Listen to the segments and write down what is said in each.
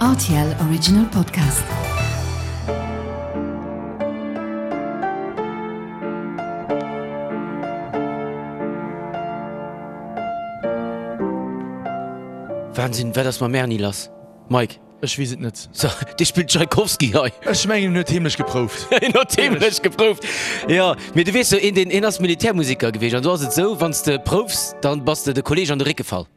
Rtl Original Podcast. Wahnsinn, wat ass mam Erny lass? Mike? Ech weess et net. So, dee spillt Tschaikowski hei. Ech mengen, en huet heemlech geprouft. En huet heemlech geprouft, jo. Mee du weess jo, een deen, een ass Militärmusiker gewiescht an do ass et esou, wann s de proufs, dann bass de de Kolleeg an de Réck gefall.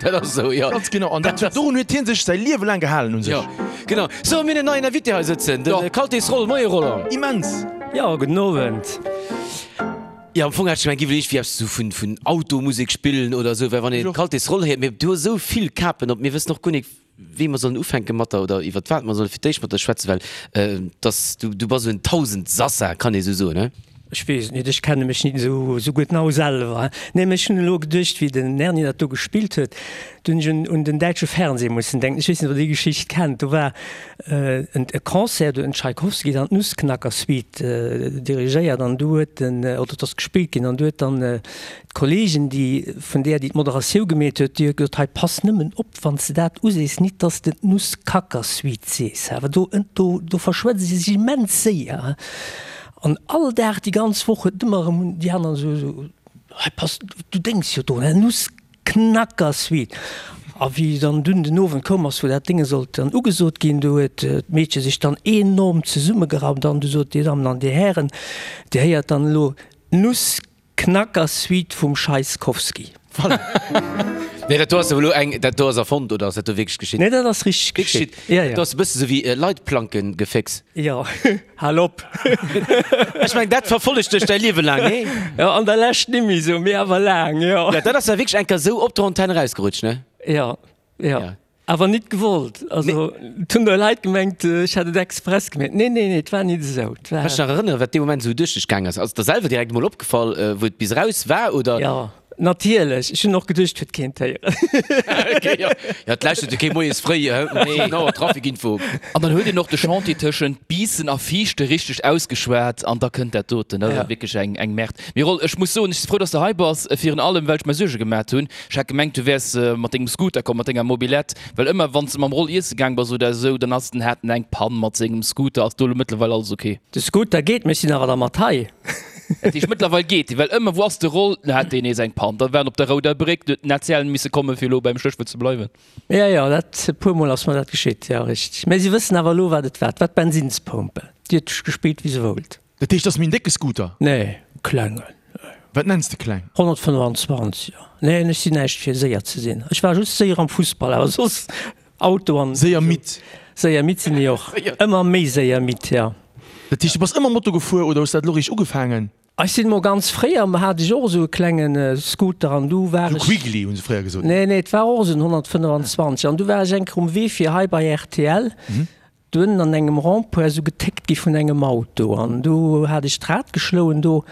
Dat ass esou, jo. Ganz genau. An dat, dorun huet hie sech säi Liewe laang gehalen u sech. Jo, genau. So, mir hunn en neien Invité hei sëtzen, de Kaltis Roll. Moie Roland. Immens. Jo, gudden Owend. Jo, am Fong hat ech gemengt, giff elo iergendwéi eppes sou vun, vun Automusek spillen oder esou, well wann een Kaltis Roll héiert, mee du hues esou vill Kapen op, mir wëssen och guer nik, wéi mer sollen ufänke mat der oder iwwert wat mer solle fir d'éischt mat der schwätzen, well dass du, du bass esou en Tausendsassa, kann ee sou soen, he? Ech weess et nit, ech kenne mech nit esou esou gutt nau selwer. Nee, mee ech hunn elo geduecht, wéi den Erny dat do gespillt huet, do hunn ech un un den däitsche Fernseh mussen denken. Ech weess net, ob Der déi Geschicht kennt. Do war en e Concert, do huet den Tschaikowski dann d'Nussknacker-Suite dirigéiert an du huet den, oder et ass gespillt ginn an du huet dann d'Kolleegin, déi vun där, déi d'Moderatiou gemeet huet, déi huet gesot, hei pass nëmmen op, wann s de dat usees, nit dass de d'Nusskacker-Suite sees, awer do, do, do verschwätze se sech immens séier. An all Dag, déi ganz Woch huet ëmmer erëm déi aner esou, esou, hei pass, du denks jo drun, Nussknacker-Suite. A wéi dann dunn den Owend koum ass, wou dat Dénge sollt dann ugesot ginn, do huet d'Meedche sech dann enorm zesummegeraumt an du sot, Dir Dammen an Dir Hären, Dir héiert dann elo d'Nuss. Knacker Suite vum Scheiskowski. Voilà. Nee, dat do ass elo eng, dat do ass erfonnt oder ass dat do wierklech geschitt? Nee, dat ass richteg geschitt. Ja, ja. Dat ass e bësse sou wéi Leitplankengefécks. Jo, hal op. Ech meng, dat verfollegt dech däi Liewe laang, nee? Jo, an der Lescht nimmi sou, mee awer laang, jo. Ja, dat ass ja wierklech eng Kéier sou op der Antenn erausgerutscht, ne? Jo, jo. Ja. Awer nit gewollt. Also, et hunn der Leit gemengt, ech hätt et express gemeet. Nee, nee, nee, et war nit esou. Et war. Kanns dech nach erënneren, wat dee Moment esou duerch dech gaang ass? Ass et der selwer direkt emol opgefall, wou et bis eraus war, oder? Jo, natierlech. Ech hunn och geduecht, et huet keen d'héieren. Ok, jo. Jo, et lauschtert jo kee moies fréi um 7 Auer Trafikinfo. An dann huet een och de Chantier tëschent Biissen a Viichte richteg ausgeschwat an da kënnt dat doten. Dat ass wierklech eng, eng Merde. Mee Roll, ech muss soen, ech si frou, dass de hei bass, virun allem well ech mer Suerge gemat hunn. Ech hat gemengt du wärs mat dengem Scooter komm, mat denger Mobilette, well ëmmer wanns de mam Roll iesse gaang bass oder esou, dann ass den hat en eng Pann mat sengem Scooter. Ass do elo mëttlerweil alles ok? De Scooter geet, mee ech sinn awer da mat hei. Dat heescht mëttlerweil geet dee, well ëmmer wou ass de Roll, dann hat deen nees eng Pann, da war en op der rouder Bréck, du huet den ACL misse komme fir elo beim Stéchwuert ze bleiwen. Jo, jo, dat e puer mol ass mer dat geschitt, jo richteg. Mee si wëssen awer elo wat et war, et war d'Bensinspompel, déi huet gespillt wéi se wollt. Dat heescht, dat ass méi en décke Scooter? Nee, e klengen. Wat nenns de kleng? 125, jo. Nee, ech sinn näischt fir séier ze sinn. Ech war just séier am Fussball, awer soss Auto an. Séier midd? Séier midd sinn ech och. Ëmmer méi séier midd, jo. Dat heescht, du bass ëmmer Moto gefuer oder hues dat elo réischt ugefaangen? Ech sinn mol ganz fréier, hat ech och esou e klenge Scooter an du war ech. Esou Quiggly hu se fréier gesot. Nee, nee, et war och esou en 125 an du war ech eng Kéier um Wee fir hei bei rtl. Dunn an engem Rond-point esou getéckt gi vun engem Auto an du hat ech d'Rad geschloen do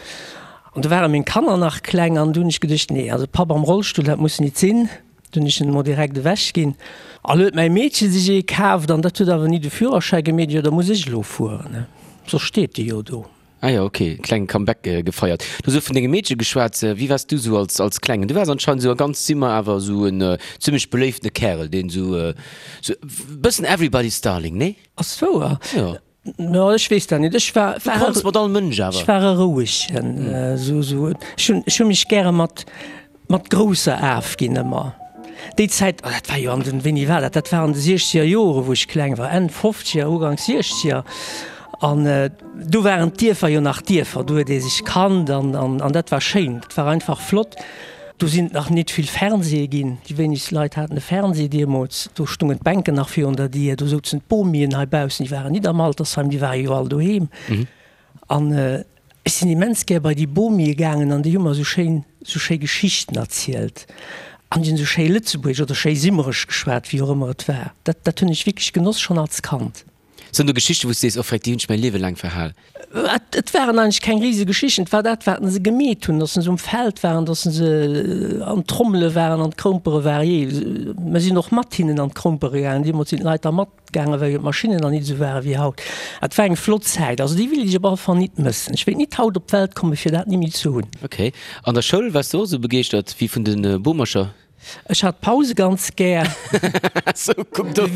an du ware meng Kanner nach kleng an du hunn ech geduecht, nee, also Papp am Rollstull, dat muss nit sinn. Du hunn ech en emol direkt ewech ginn. A lo huet mäi Meedche sech ee kaaft an dat huet awer ni de Führerschäi gemeet, jo da muss ech elo fueren, soss steet dee jo do. Ah jo, ok, klengen Comeback gefeiert. Du hues elo vun dengem Meedche geschwat. Wéi waars du sou als als Klengen? Du waars anscheinend sou a ganz Simmer awer sou en zimmlech beléiftene Kärel, deen sou sou bëssen everybody's darling, nee? Ass wouer? Jo. Jo, ech weess dat net. Ech war Du konns mat all Mënsch awer. Ech war e rouegen, sou sou ech hunn ech hu mech gäre mat Mat grousser afginn ëmmer. Déi Zäit, oh dat war jo an den, wéini war dat, dat war an de siechzeger Jore wou ech kleng war, Enn fofzeger, Ugank siechzeger an do waren d'Dierfer jo nach Dierfer, do huet ee sech kannt an an dat war schéin, dat war einfach flott. Do sinn et nach nit vill Fernseeë ginn, déi wéinegst Leit haten e Fernsee deemools, do stungen d'Bänken nach virun der Dier, do souzen d'Bomien heibaussen, déi waren nit am Altersheim, déi ware jo all doheem. An ech sinn immens gär bei déi Bomie gaangen an déi hu mer esou schéin, esou schéi Geschichten erzielt an déi hunn esou schéi Lëtzebuergesch oder schéi Simmeresch geschwat, wéi och ëmmer et war. Dat, dat hunn ech wierklech genoss, schonn als Kand. Sinn do Geschichten, wou s de sees, oh freck, déi hunn ech mäi Liewe laang verhal? Et, et waren eigentlech keng rise Geschichten. Et war dat, wat se gemeet hunn, datt se um Feld waren, datt se an d'Trommele waren, an d'Kroumpere waren. Jee, mer sinn och mat hinnen an d'Kroumpere gaangen. Deemools sinn d'Leit da mat. Gaange well jo d'Maschinnen nach nit esou ware wéi haut. Et war eng flott Zäit, also déi wéilt ech op alle Fall nit mëssen. Ech wéilt nit haut op d'Welt komme fir dat nimmi ze hunn. Ok. An der Schoul waars du och esou begeeschtert wéi vun de Bomercher? Ech hat d'Pause ganz gär. Sou, kuck do.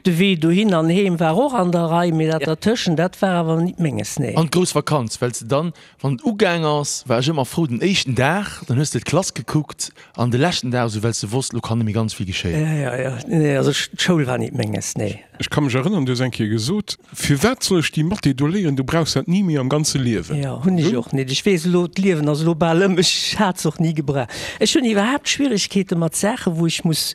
De Wee dohin an heem war och an der Rei, mee dat dertëschent, dat war awer nit menges, nee. An d'grouss Vakanz, well s de dann, wann et ugaang ass, war ech ëmmer frou, den éischten Dag, dann hues de d'Klass gekuckt, an de leschten Dag esou, well s de wosst, lo kann nëmme ganz vill geschéien. Jo, jo, jo, nee, also d'Schoul war nit menges, nee. Ech ka mech erënneren, du hues eng Kéier gesot, Firwat soll ech déi Mathé do léieren, du brauchs dat ni méi am ganze Liewen. Jo, hunn ech och nit. Ech weess elo, d'Liewen ass elo bal ëm, ech hat se och ni gebraucht. Ech hunn iwwerhaapt Schwieregkeete mat Saachen, wou ech muss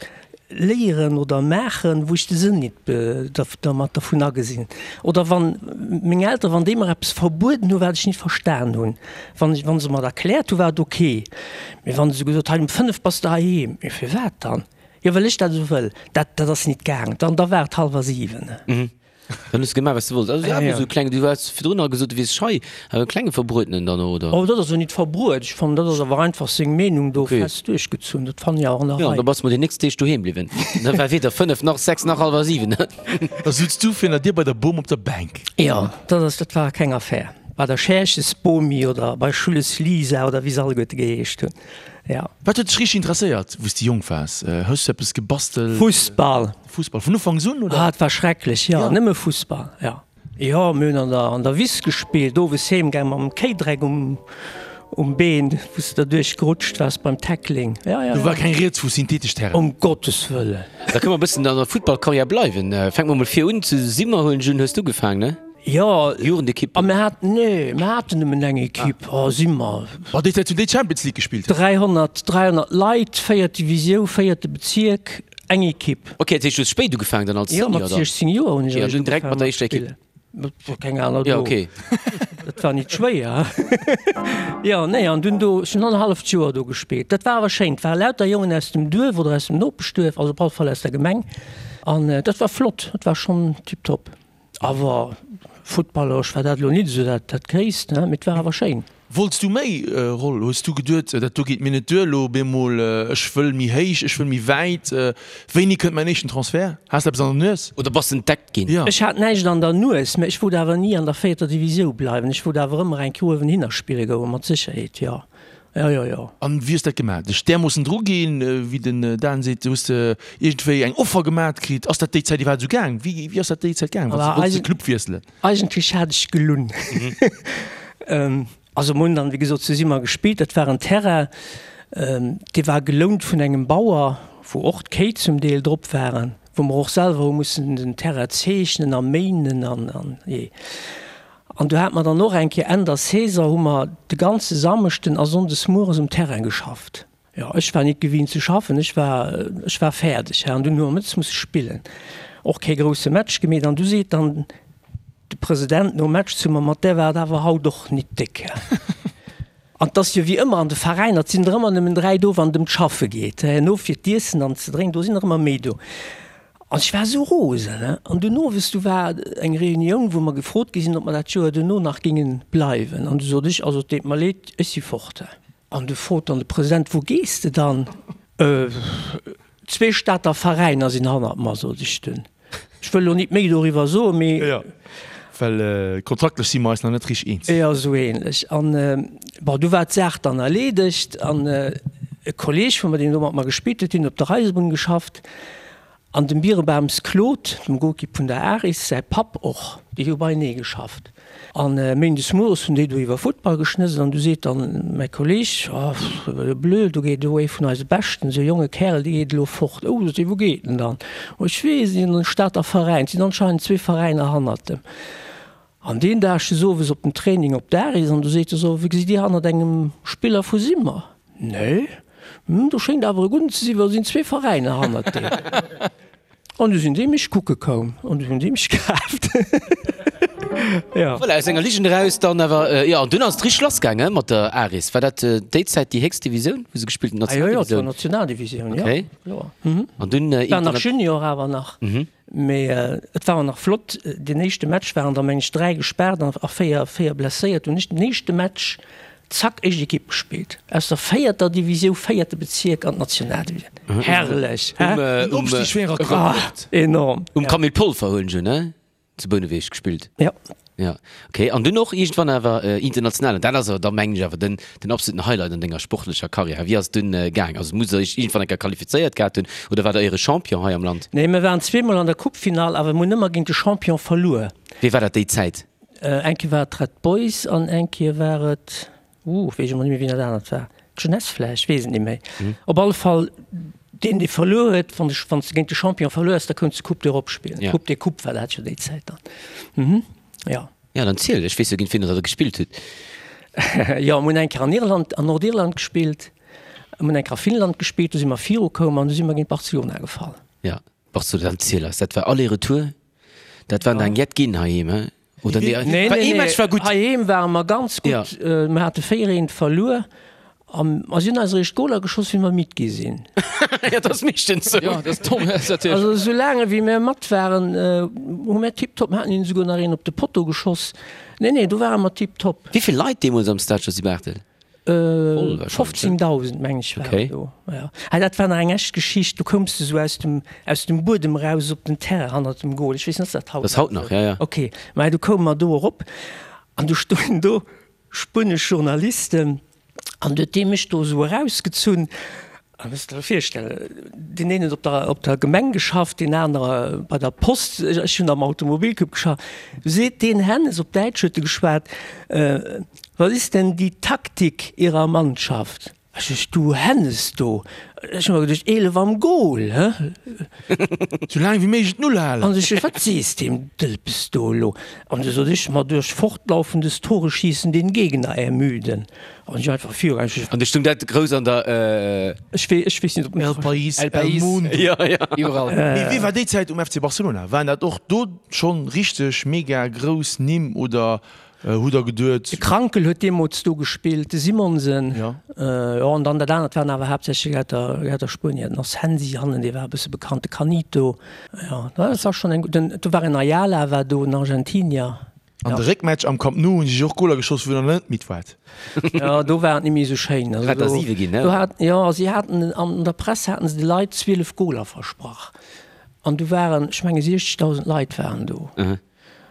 léieren oder maachen, wou ech de Sënn nit dermat dervun agesinn. Oder wann meng Elteren, wann déi mer eppes verbueden hunn, wat ech nit verstan hunn. Wann ech, wann se mer et erkläert hunn, war et ok. Mee wann se gesot, hei um 5 bass de heiheem. Mee firwat dann? Jo well ech dat esou wëll. Dat, dat ass nit gaang. Dann, da war et hallwer 7. Dann hues de gemaach, wat s de wollts. Also awer esou kleng, du hues virdrun nach gesot, du wiers schei, awer e klenge Verbruetenen dann och, oder? Oh, dat ass jo nit verbruet. Ech fannen, dat ass awer einfach seng Meenung do fest duerchgezunn. Dat fannen ech awer an der Rei. Jo, da bass de mol déi nächst Deeg doheem bliwwen. Da war weder 5 nach 6 nach hallwer 7. Da sutz du virun der Dier bei der Bom op der Bänk. Jo, dat ass, dat war keng Affär. Bei der Scherches Bomi oder bei Schulles Lisa oder wéi se alleguerte geheescht hunn. Ja. Wat huet dech richteg interesséiert, wou s de jonk waars? Hues du eppes gebastelt? Fussball. Fussball vun Ufanks un, oder? Ah, et war schrecklech, jo, nëmme Fussball, jo. Jo, mir hunn an der, an der Wiss gespillt, owes heem gaang mam Kéidreck um, um Been, wou s de derduerch gerutscht waars beim Tackling. Jo, jo, jo. Do war keng Rieds vu synthetesch Terrain. Um Gottes Wëllen. Da kënne mer e bëssen an der Futtballkarriär bleiwen. Fänke mer mol vir un, zu Simmer huelen ech un, hues du ugefaangen, ne? Jo, Jugendekipp. A mir haten, nee, mir haten nëmmen eng Ekipp. Oh, si mer. Oh, déi Zäit hunn déi Champions League gespillt. 300, 300 Leit, véiert Divisiou, véierte Bezierk, eng Ekipp. Ok, dat heescht, du hues spéit ugefaangen dann als Senior dann? Jo, mat 16 Joer hunn ech eréischt ugefaangen direkt mat der éischter Ekipp? Et war keng aner do. Jo, ok. Dat war nit schwéier. Jo, nee, an dunn do, ech hunn annerhalleft Joer do gespillt. Dat war awer schéin. Et ware lauter Jongen aus dem Duerf oder aus dem Nopeschduerf, also op alle Fall aus der Gemeng. An dat war flott, dat war schonn tiptop. Awer futtballeresch war dat elo nit esou dat dat Gréisst, ne, mee et war awer schéin. Wollts du méi, Roll? Hues du geduet, dat do geet mir net duer elo op eemol, ech wëll méi héich, ech wëll méi wäit? Wéini kënnt mäin éischten Transfert? Has de eppes an der Nues? Oder bass entdeckt ginn? Jo. Ech hat näischt an der Nues, mä ech wollt awer ni an der véierter Divisiou bleiwen. Ech wollt awer ëmmer eng Kéier uewenhinner spille goen, mat Sécherheet, jo. Jo, jo, jo. An wéi hues dat gemaat? Dech därmoossen dru ginn, wéi den Dan seet, hues de iergendwéi eng Offer gemaat kritt? Ass dat déi Zäit iwwerhaapt esou gaang? Wéi, wéi ass dat déi Zäit gaang, wann s de wollts de Club wiesselen? Eigentlech hat ech gelunn. Also mir hunn dann, wéi gesot, zu Simmer gespillt. Dat war en Terrain, dee war gelount vun engem Bauer, wou och d'Kéi zum Deel drop waren, wou mer och selwer hu mussen den Terrain zeechnen a méinen an, an jee. An du hate mer dann och eng Kéier Enn der Saison hu mer de ganze Samschden a Sonndes mueres um Terrain geschafft. Jo, ech war nit gewinnt ze schaffen, ech war, ech war fäerdeg, hä. An dunn hu mer mëttes musse spillen. Och kee grousse Match gemeet. An du seet dann de President nom Match zu mer, Mat där war et awer haut och nit déck, hä. An 't ass jo wéi ëmmer an de Veräiner, 't sinn der ëmmer nëmmen 3 do, wann et ëm d'Schaffe geet. Herno fir d'Iessen an ze drénken, do sinn der ëmmer méi do. An ech war esou rosen, he. An dunn owes, du war eng Reunioun, wou mer gefrot gi sinn, ob mer dat Joer duerno nach géinge bleiwen. An du sot ech, also et deet mer leed, ech si fort, he. An du frot dann de President, Wou gees de dann? Zwee Stater Veräiner sinn hannert mer, sot ech dunn. Ech wëll elo nit méi doriwwer soen, mee. Jo, well kontraktlech si mer eis nach net richteg eens. Jo, esou ähnlech. An, bon, du war d'Saach dann erleedegt. An e Kolleeg vu mer, deen do mat mer gespillt huet, deen huet op der Eisebunn geschafft. An dem Birebams Claude, dem Goalkeep vun der Aris, säi Papp och, déi hu beienee geschafft. An méindes mueres hunn déi do iwwer Futtball geschnësselt an du seet dann mäi Kolleg, Oh, blöd, do geet elo ee vun eise Beschten, esou e jonge Kärel, dee geet elo fort. Oh, sot hie, wou geet en dann? Oh, ech weess net, an den Stater Veräin. Et sinn anscheinend zwee Veräiner hannert em. An deen Dag ech owes op den Training op d'Aris an du seet e so, Wéi gesitt Dir hannert engem Spiller vu Simmer? Nee. Hm, do schéngt awer e gudden ze sinn, well do sinn zwee Veräiner hannert deem. An du sinn déi mech kucke koum an du hunn déi mech kaaft. Jo. Voilà, aus enger Ligen eraus dann awer, jo, an dunn ass et richteg lass gaange mat der Aris. War dat déi Zäit déi héchst Divisioun, wou se gespillt hunn, Ah jo, jo, et war Nationaldivisioun, jo, Okay. kloer. An dunn War nach Junior awer nach. Mee et war och nach flott, deen éischte Match waren der meng ech 3 gespaart a 4 4 blesséiert. Hunn ech den éischte Match zack éischt Ekipp gespillt, aus der véierter Divisiou, véierte Bezierk an d'Nationaldivisioun. Herrlech, hä? Den Opstig wär e Rekord. Enorm. Um Camille Polfer huelen ech un, ne? Zu Bouneweg gespillt? Ja. Ja, okay. An dunn och iergendwann awer international. An dat ass awer da mengen ech awer den, den absoluten Highlight an denger sportlecher Karriär. Wéi ass et dunn gaang? Also musst der iech iergendwann eng Kéier qualifizéiert gehat hunn oder waart der éiere Champion hei am Land? Nee, mir waren zweemol an der Coupefinall, awer mir hunn ëmmer géint de Champion verluer. Wee war dat déi Zäit? Eng Kéier war et d'Red Boys an eng Kéier war et, Uh, weess ech emol net méi, wien dat anert war. D'Jeunesse vläicht, weess et net méi. Op alle Fall, deen, dee verluer huet, wann de, wann s de géint de Champion verluer hues, da kounts de Coupe d'Europe spillen. Ja. Coupe des Coupes war dat jo déi Zäit dann. Mhm, jo. Ja, dann ziel, ech weess jo, géint wien der da gespillt hutt. Jo, mir hunn eng Kéier an Irland, an Nordirland gespillt, mir hunn eng Kéier a Finnland gespillt, do si mer virukoum an du si mer géint Barcelona gefall. Ja, Barcelona, dann ziel eis, dat war Aller-Retour, dat waren der eng jett ginn heiheem, he? Oder nee, nee, nee, ee Match war gutt. Heiheem ware mer ganz gutt. Ja. Mir hate 4 eent verluer. An a si hunn eis eréischt Goler geschoss, wéi mer midd gi sinn. Ja, dat ass meeschtens sou. Ja, dat ass domm, dat ass natierlech. Also esou laang ewéi mir mat waren, hu mir tiptop, mir haten hinnen esouguer nach een op de Potto geschoss. Nee, nee, do ware mer tiptop. Wéi vill Leit deemools am Stade Josy Barthel? 15.000 meng ech waren do. Ja. Ah, dat war nach eng echt Geschicht. Du koums du sou aus dem, aus dem Buedem raus op den Terrain hannert dem Goal. Ech weess net, ass dat haut nach esou? Ja, ja. Okay. Mä du koume mer do erop an du stoungen do spuenesch Journalisten an du huet dee mech do esou erausgezunn. A muss der virstellen, deen een huet op der, op der Gemeng geschafft, deen anere bei der Post, ech hunn am Automobilclub geschafft. Du seet deen Hennes, op Däitsch huet e geschwat, Was ist denn die Taktik Ihrer Mannschaft? Ech sech, du Hennes do, ech hu mer geduecht, 11 am Goal, hä? Sou laang wéi méiglech d'Null halen. An ech sech, wat sees deem Dëlpes do elo? An du sot ech, ma durch fortlaufendes Toreschießen den Gegner ermüden. An ech einfach viru. An du stung dat grouss an der. Ech wee, ech weess net ob. El País, El País, Mundo. Ja, ja. Iwwerall. Mee wee war déi Zäit um FC Barcelona? Waren dat och do schonn richteg mega grouss Nimm oder hutt der geduet. De Krankl huet deemools do gespillt, de Simonsen. Jo. Jo, an dann dat anert waren awer haaptsächlech aus der, aus der Spuenier. Den Asensi hannen, dee war e bësse bekannt, de Canito. Jo, dat war schonn eng gutt. Den, do war en Ayala war do, en Argentinier. An de Réckmatch am Camp Nou hunn si och Goler geschoss, wou der net midd waart. Jo, do war et net méi esou schéin. Also do, 7 ginn, ne? Do hat, jo, si haten, an der Press haten se de Leit 12 Goler versprach. An du waren, ech menge 60.000 Leit waren do.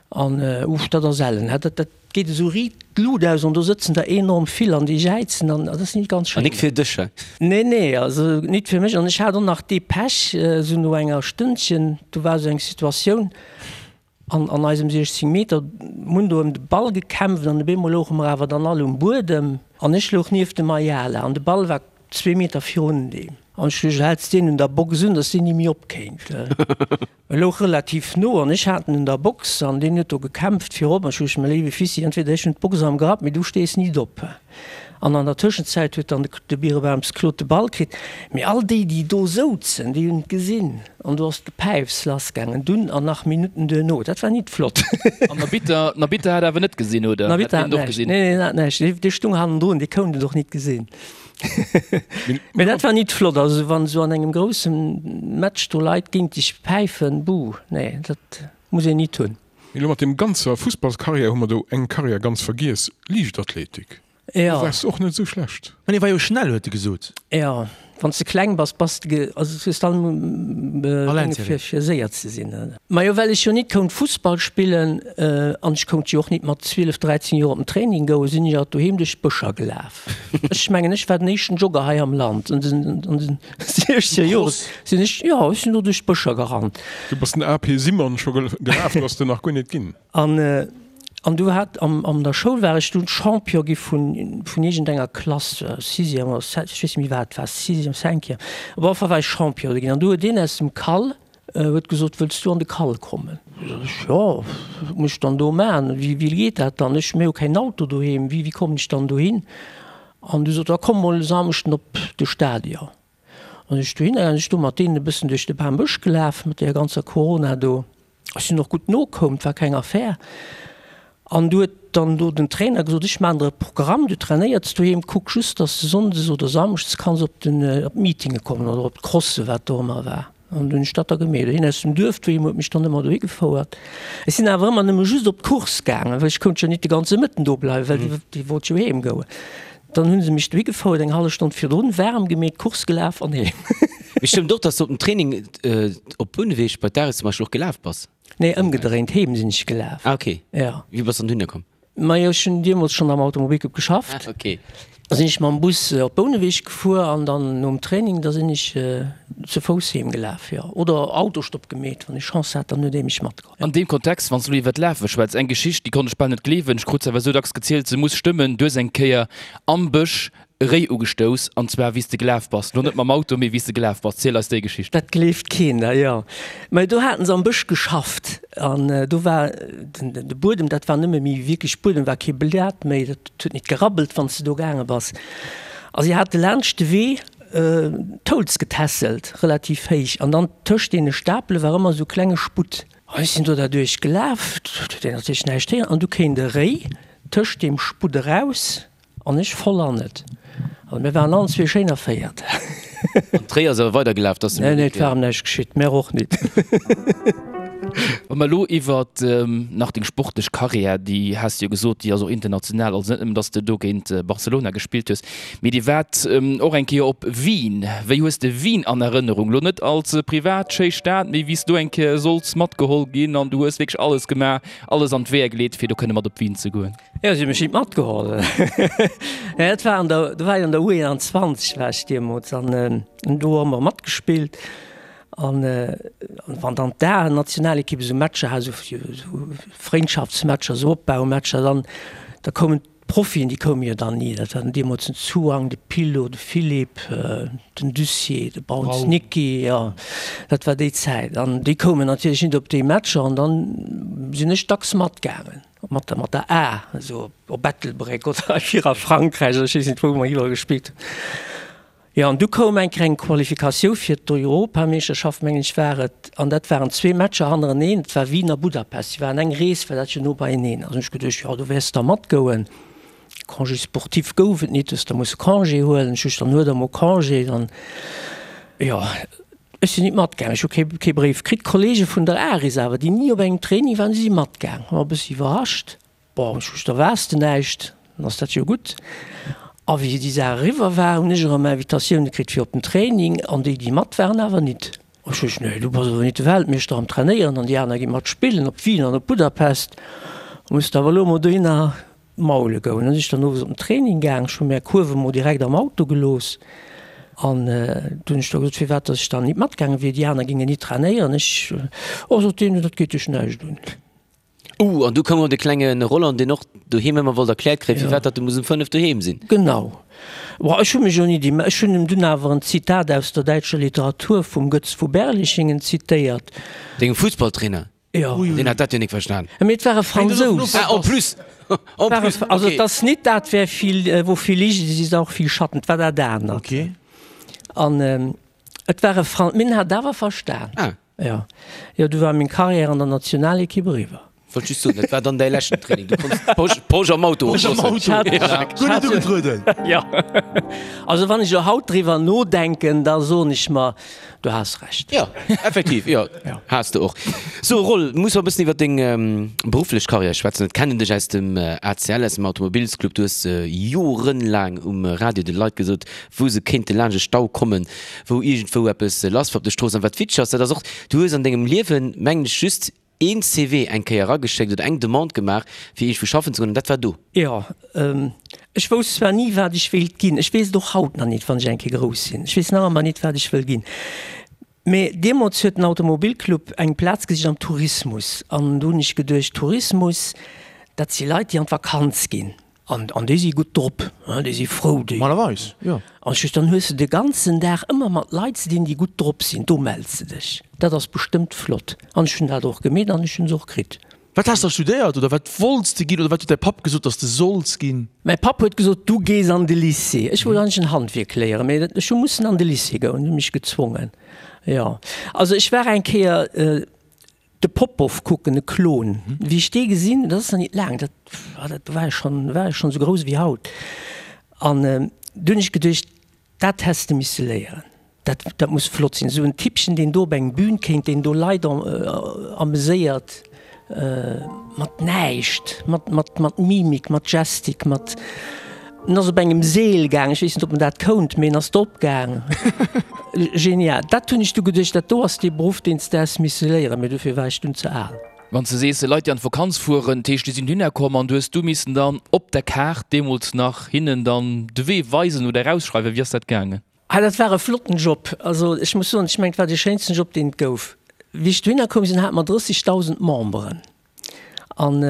An, uff, dat ass ellen, dat, dat geet esou riit d'Lut aus an do sëtzen der enorm vill an déi jäizen an dat ass nit ganz schéin. An nik fir dech, he? Nee, nee, also nit fir mech. An ech hat och nach dee Pech, esou no enger Stënnchen, do war esou eng Situatioun, An an eisem 16 Meter hunn do ëm de Ball gekämpft an op eemol louche mer awer dann all um Buedem an ech louch nieft dem Ayala an de Ball war zwee Meter virun deem an ech duecht, häls deen un der Box un, dass deen ni méi opkéint. E louch relativ no an ech hat en un der Box an deen huet do gekämpft virop an ech duecht, mä léiwe Fissi, entweder ech hunn d'Box am Grapp, mee du stees nit op. An an der Tëschenzäit huet dann de Birebaums Claude de Ball kritt. Mee all déi, déi do souzen, déi hunn et gesinn. An do ass d'Gepäifs lassgaangen, dunn an nach Minutten duerno. Dat war nit flott. An den Arbitter, den Arbitter hat awer net gesinn, oder? Den Arbitter hat näischt. Nee, nee, hat näischt. Dee, dee stung hannendrun, dee kount et och nit gesinn. Mee dat war nit flott. Also wann esou an engem grousse Match do Leit géint dech päifen, buh, nee, dat muss een nit hunn. Mee elo mat deem ganzer Fussballskarriär hu mer do eng Karriär ganz vergiess, Liichtathletik. Jo. Do waars de och net esou schlecht. Mä dee war jo schnell, huet e gesot. Jo, wann s de kleng bass, bass de, also du hues dann Dinge fir, fir séier ze sinn. Majo, well ech jo nit kount Fussball spillen an ech kount jo och nit mat 12, 13 Joer op den Training goen, sinn ech alt doheem duerch d'Bëscher gelaf. Ech mengen, ech war den éischten Jogger hei am Land an den, an den 16 Joer sinn ech, jo, ech sinn do duerch d'Bëscher gerannt. Du bass den AP Simon scho gelaf, du ass den nach guer net ginn. An, an du hat, am, an der Schoul war ech dunn Champion gi vun, vun iergendenger Klass, Sixième oder Septième, ech weess net méi wat et war, Sixième, Cinquième, op alle Fall war ech Champion do ginn. An du huet een aus dem Cal huet gesot, Wëlls du an de Cal kommen? Sot ech, Jo, wat muss ech dann do maachen? Wéi, wéi geet dat dann? Ech, mir hu keen Auto doheem, wéi, wéi kommen ech dann dohin? An du sot, Da komm mol e Samschden op de Stadion. An ech dohinner gaangen, ech do mat deenen e bëssen duerch de Bambësch gelaf, mat deeër ganzer Corona do. Ech sinn och gutt nokoum, et war keng Affär. An du huet dann do den Trainer gesot, ech maachen der e Programm, du trainéierts doheem, kuck just, dass de sonndes oder samschdes kanns op den, op d'Meetinge kommen oder op d'Crosse, wat do ëmmer war. An du hunn ech dat da gemeet. Hien aus dem Duerf doheem huet mech dann ëmmer dohi gefouert. Ech sinn awer ëmmer nëmme just op d'Course gaangen, well ech kount jo nit de ganze Mëtten do bleiwen, well déi, déi wollt jo heem goen. Dann hu se mech dohi gefouert, eng hallef Stonn virdrun, waarm gemeet, Course gelaf an heem. Mee stëmmt och, dass du op dem Training op Bouneweg bei d'Aris zum Beispill och gelaf bass? Nee, ëmgedréint, heem sinn ech gelaf. Ah, okay. Ja. Wéi bass dann dohinner komm? Majo, ech hunn deemools schonn am Automobilclub geschafft. Ah, okay. Da sinn ech mam Bus op Bouneweg gefuer an dann nom Training, da sinn ech ze Fouss heem gelaf, jo. Oder Autostopp gemeet, wann ech Chance hat, dann huet ee mech matgeholl. An deem Kontext, wann s du elo iwwer d'Lafe schwätz, eng Geschicht, déi konnt ech bal net gleewen, ech krut se awer esou dacks gezielt, se muss stëmmen, Du hues eng Kéier am Bësch e Réi ugestouss, an zwar wéi s de gelaf bass, lo net mam Auto, mee wéi s de gelaf bass. Ziel eis déi Geschicht. Dat gleeft keen, da jo. Mä do haten se am Bësch geschafft an do war den de Buedem, dat war nëmme méi wierklech Buedem, war kee Blat méi, dat huet nit gerabbelt, wann s de do gaange bass. A si hate laanscht de Wee d'Holz getässelt, relativ héich, an dann tëscht deene Stapele war ëmmer esou klenge Sputt. An ech sinn do derduerch gelaf, et huet een natierlech näischt héieren, an du kéint e Réi tëscht deem Sputt eraus. An ech voll an et. Also mir waren allen zwee schéin erféiert. An d'Réi ass awer weidergelaf, dass Nee, nee, et war em näischt geschitt. Mär och nit. Wa mer elo iwwert nach deng sportlech Karriär, déi has de jo gesot, déi ass och international, also net nëmmen, dass de do géint Barcelona gespillt hues, mee dir waart och eng Kéier op Wien. Wéi hues de Wien an Erënnerung? Elo net als privat schéi Stad, mee wéi s du eng Kéier solls matgeholl ginn an du hues wierklech alles gemaach, alles an d'Weeër geleet, fir do kënne mat op Wien ze goen. Jo, si hu mech nit matgeholl. Dat war an der, do war ech an der U21 war ech deemools an do hu mer matgespillt. An wann dann d'A-Nationalekipp esou Matcher hat, esou Frëndschaftsmatcher, esou Opbaumatcher, dann da koumen d'Profien, déi koume jo dann ni. Dat waren deemools den Zuang, de Pillo, de Philippe, den Dussier, de Brauns Niki, jo dat war déi Zäit. An déi koumen natierlech nit op déi Matcher an dann sinn ech dacks matgaangen. Mat der, mat der A, esou op Ettelbréck oder hei a Frankräich oder ech weess net wou mer iwwerall gespillt hunn. Jo, an du koum eng kleng Qualifikatioun fir d'Europameeschterschaft, mengen ech war et, an dat waren zwee Matcher hannereneen, et war Wien a Budapest, si waren eng Rees, well dat jo no beieneen ass. Hunn ech geduecht, jo do wäers de da matgoen. Congé sportif gouf et nit, hues der musse Congé huelen. Ech hu dann huet der mol Congé, dann jo. Ech sinn nit matgaang, ech hu kee kee Bréif kritt. D'Kollege vun der Aris awer, déi ni op engem Training waren, déi si matgaang. War e bëssi iwwerrascht. Bon, ech hu da waars de näischt, dann ass dat jo gutt. A wéi déi Saach eriwwer war, hunn ech erëm Invitatioune kritt fir op den Training, an déi, déi mat waren, awer nit. Ech hu gesot, Nee, du bass awer nit de Weltmeeschter am Trainéieren an déi aner gi mat spillen op Wien an op Budapest. Muss de awer elo emol dohinner Maule goung. Dann sinn ech dann owes op den Training gaang. Ech hu mär Kuerf emol direkt am Auto gelooss an du hunn ech da gesot, firwat datt ech dann nit matgaange wier, déi aner géingen nit trainéieren. Ech, oh, sot deen, dat geet dech näischt un. Uh, an du koum och de klenge Roland, deen och doheem ëmmer wollt erkläert kréien, firwat datt e muss um 5 doheem sinn. Genau. Bon, ech hu mech jo nit imm, ech hunn em dunn awer en Zitat aus der däitscher Literatur vum Götz vu Berlichingen zitéiert. Dengem Fussballtrainer? Jo. Deen hat dat jo nik verstan. Mee et war e Fransous. Ah, en plus! En plus, Also et ass nit dat, wer viel, wo viel Licht ist, ist auch viel Schatten. Et war dat anert. Okay. An et war e Fran, mee en hat awer verstan. Ah. Jo. Jo, du war meng Carrière an der Nationalekipp eriwwer. Wollt just soen, dat war dann däi leschten Training. Du konns d'Posch, d'Posch am Auto Posch am oplossen. Auto. Guer net ugetrueden. Jo. Also wann ech elo haut driwwer nodenken, da soen ech mer, Du has Recht. Jo, effektiv, jo, has de och. So Roll, muss mer e bëssen iwwer deng berufflech Karriär schwätzen. Et kennen dech aus dem ACL, aus dem Automobilsclub. Du hues jorenlaang um Radio de Leit gesot, wou se kéinte laanscht e Stau kommen, wou iergendwou eppes lass war op de Stroossen. An wat witzeg ass, dat ass och, du hues an dengem Liewen, mengen ech, just een CV eng Kéier erageschéckt oder eng Demande gemaach, fir iergendwou schaffen ze goen, an dat war do. Jo, ech wousst zwar ni, wat ech wéilt ginn, ech weess et och haut nach nit, wann ech eng Kéier grouss sinn, ech weess nach ëmmer nit, wat ech wëll ginn, mee deemools huet den Automobilclub eng Plaz gesicht am Tourismus an do hunn ech geduecht, Tourismus, dat si Leit, déi an d'Vakanz ginn. An, an déi si gutt drop, hein, déi si frou, déi. Normalerweis, jo. An ech, dann hues de de ganzen Dag ëmmer mat Leit ze dinn, déi gutt drop sinn, do mells de dech, dat ass bestëmmt flott. An ech hunn dat och gemeet an ech hunn se och kritt. Wat has de da studéiert oder wat wollts de ginn oder wat huet däi Papp gesot, dass de solls ginn? Mäi Papp huet gesot, du gees an de Lycée. Ech wollt eigentlech en Handwierk léieren, mee ech hu mussen an de Lycée goen, hunn mech gezwongen, jo. Also ech war eng Kéier. De Popoff kucken, e Klon. Wéi ech dee gesinn, dat ass nach nit laang, dat dat war ech schonn, war ech schonn esou grouss ewéi haut. An du hunn ech geduecht, dat häss de misse léieren, dat dat muss flott sinn, esou en Typpchen, deen do op eng Bühn kéint, deen do Leit ameséiert mat näischt, mat mat mat Mimik, mat Gestik, mat. En ass op engem Seel gaang, ech weess net, ob en dat kount, mee en ass drop gaang. Genial. Dat hunn ech du geduecht, dat do ass dee Beruff, deen s de häss misse léieren, mee dofir war ech dunn ze al. Wann s de sees, Leit, déi an d'Vakanz fueren, dat heescht, déi sinn dohinner komm an du hues du missen dann op der Kaart deemools nach hinnen dann de Wee weisen oder erausschreiwen. Wéi ass dat gaangen? Ah, dat war e flotten Job. Also ech muss soen, ech mengen, et war dee schéinsten Job, deen et gouf. Wéi ech dohinner koum sinn, hate mer 30.000 Memberen. An